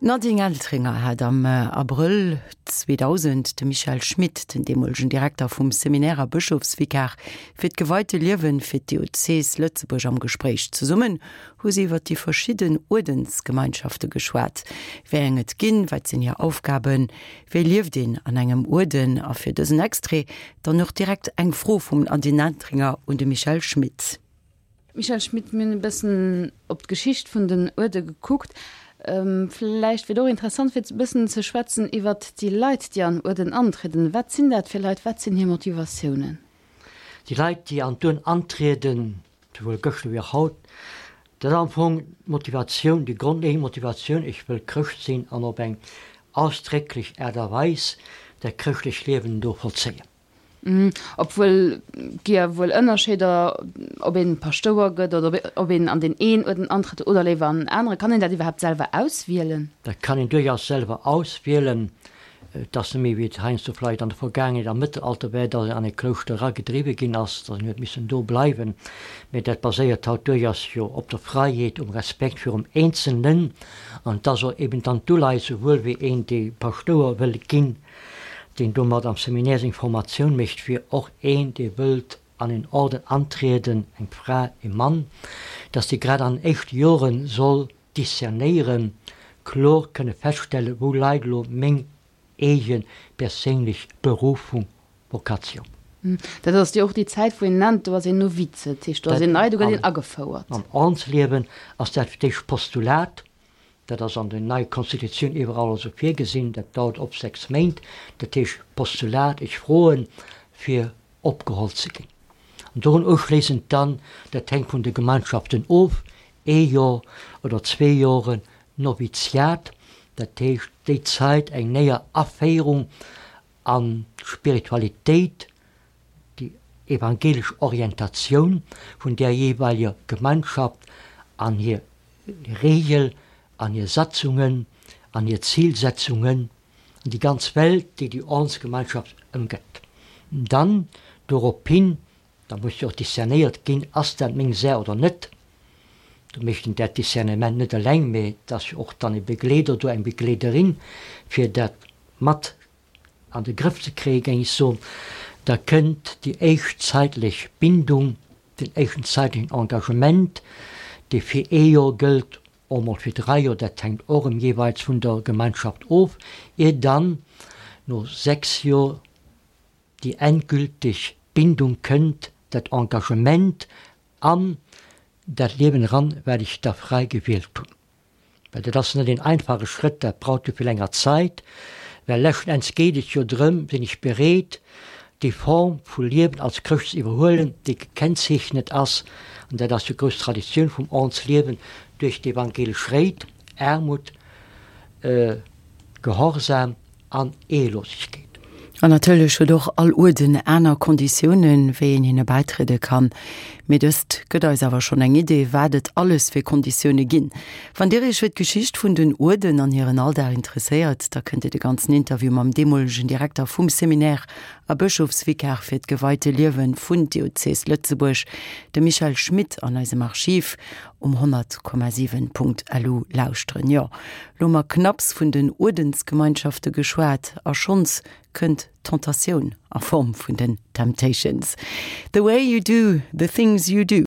D'Nadine Entringer hat am Abrëll 2000 de Michel Schmit, den deemolegen Direkter vum Seminaire a Bëschofsvikar fir d'geweite Liewen fir d'Diözes Lëtzebuerg am Gespréich. Zesummen hu si iwwer déi verschidden Uerdensgemeinschafte geschwat, wéi eng et ginn, wat sinn hir Aufgaben, wéi lieft een an engem Uerden? A fir dësen Extrait dann och direkt eng Fro vum Nadine Entringer un de Michel Schmit. Michèle Schmit, Mir hunn e bëssen op d'Geschicht vun den Uerde gekuckt. Vläicht wier et och interessant fir e bëssen ze schwätzen iwwert déi Leit, déi an Uerden antrieden. Wat sinn dat fir Leit? Wat sinn hir Motivatiounen? Déi Leit, déi an d'Uerden antrieden, souwuel gëschter wéi och haut, dat ass am Fong d'Motivatioun, déi grondleeënd Motivatioun, Ech wëll Chrëscht sinn an op eng ausdrécklech Aart a Weis dat chrëschtlecht Liewen do vollzéien. Obwuel gi jo wuel Ënnerscheeder, ob een Paschtouer gëtt oder ob een an deen een Uerden antrëtt oder léiwer an en anere. Kann een dat iwwerhaapt selwer auswielen? Dat kann een duerchaus selwer auswielen. Et ass net méi wéi et heiansdo vläicht an der Vergaangenheet am Mëttelalter war, datt een an e Klouschter eragedriwwe ginn ass, datt een huet missen do bleiwen. Mee dat baséiert haut duerchaus jo op der Fräiheet, um Respekt virum Eenzelnen. An et ass och eben dann d'Uleies, souwuel wéi een, dee Paschtouer wëll ginn, deen domat am Seminaire seng Formatioun mécht, wier och een, dee wëllt an een Orden antrieden, eng Fra, ee Mann, dass dee grad an den éischte Jore soll discernéieren, kloer kënne feststellen, wou leit elo meng eege perséinlech Berufung, Vocatioun. Dat ass jo och déi Zäit, wou een nennt, do ass een Novize, dat heescht, do ass een nei, do gëtt een agefouert. Am Ordensliewen ass dat fir d'éischt Postulat, Dat ass an der neier Constitutioun iwwerall esou virgesinn. Dat dauert op 6 Méint. Dat heescht Postulat, ech froen, fir opgeholl ze ginn. An dorun uschléissend dann, dat hänkt vun de Gemeinschaften of, ee Jor oder zwee Joren Noviziat, dat heescht déi Zait eng néier Aféierung an d'Spiritualitéit, déi evangelesch Orientatioun vun där jeeweileger Gemeinschaft an hir Regel, an hir Satzungen, an hir Zilsetzungen, an déi ganz Welt, déi déi Ordensgemeinschaft ëmgëtt. Dann dorophin, da muss jo och discernéiert ginn, ass dat meng Saach oder net. Do mécht een dat Discernement net eleng, mä et ass jo och dann e Begleeder do, eng Begleederin, fir dat mat an de Grëff ze kréien, géing ech soen, da kënnt déi éischt zäitlech Bindung, den éischten zäitlechen Engagement, dee fir ee Joer gëllt, och mol fir dräi Joer, dat hänkt och erëm jeeweils vun der Gemeinschaft of, ier dann no sechs Joer déi endgülteg Bindung kënnt, dat Engagement an dat Liewen eran, wat ech da fräi gewielt hunn. Well dat ass net een einfache Schrëtt, dat braucht jo vill enger Zait, well leschten Enns geet et jo drëm, sinn ech bereet, déi Form vu Liewen als Chrëscht ze iwwerhuelen, déi gekennzeechnet ass, an dat ass jo grouss Traditioun vum Ordnsliewen, duerch d'evangelesch Réit, Aarmut, Gehorsam an Ehelosegkeet. An natierlech huet och all Uerden aner Konditiounen, wéi een hinne bäitriede kann. Mee dëst gëtt eis awer schonn eng Idee, wat et alles fir Konditioune ginn. Wann Dir Iech fir d'Geschicht vun den Uerden an hiren Alldag interesséiert, da kënnt Dir de ganzen Interview mam deemolegen Direkter vum Seminaire a Bëschofsvikar fir d'geweite Liewe vun Diözes Lëtzebuerg, dem Michel Schmit, an eisem Archiv um 100,7.lu lauschteren. Jo, lo hu mer knapps vun den Uerdensgemeinschafte geschwat a schonns kënnt d'Tentatioun a Form vun den Temptations. The way you do the things you do.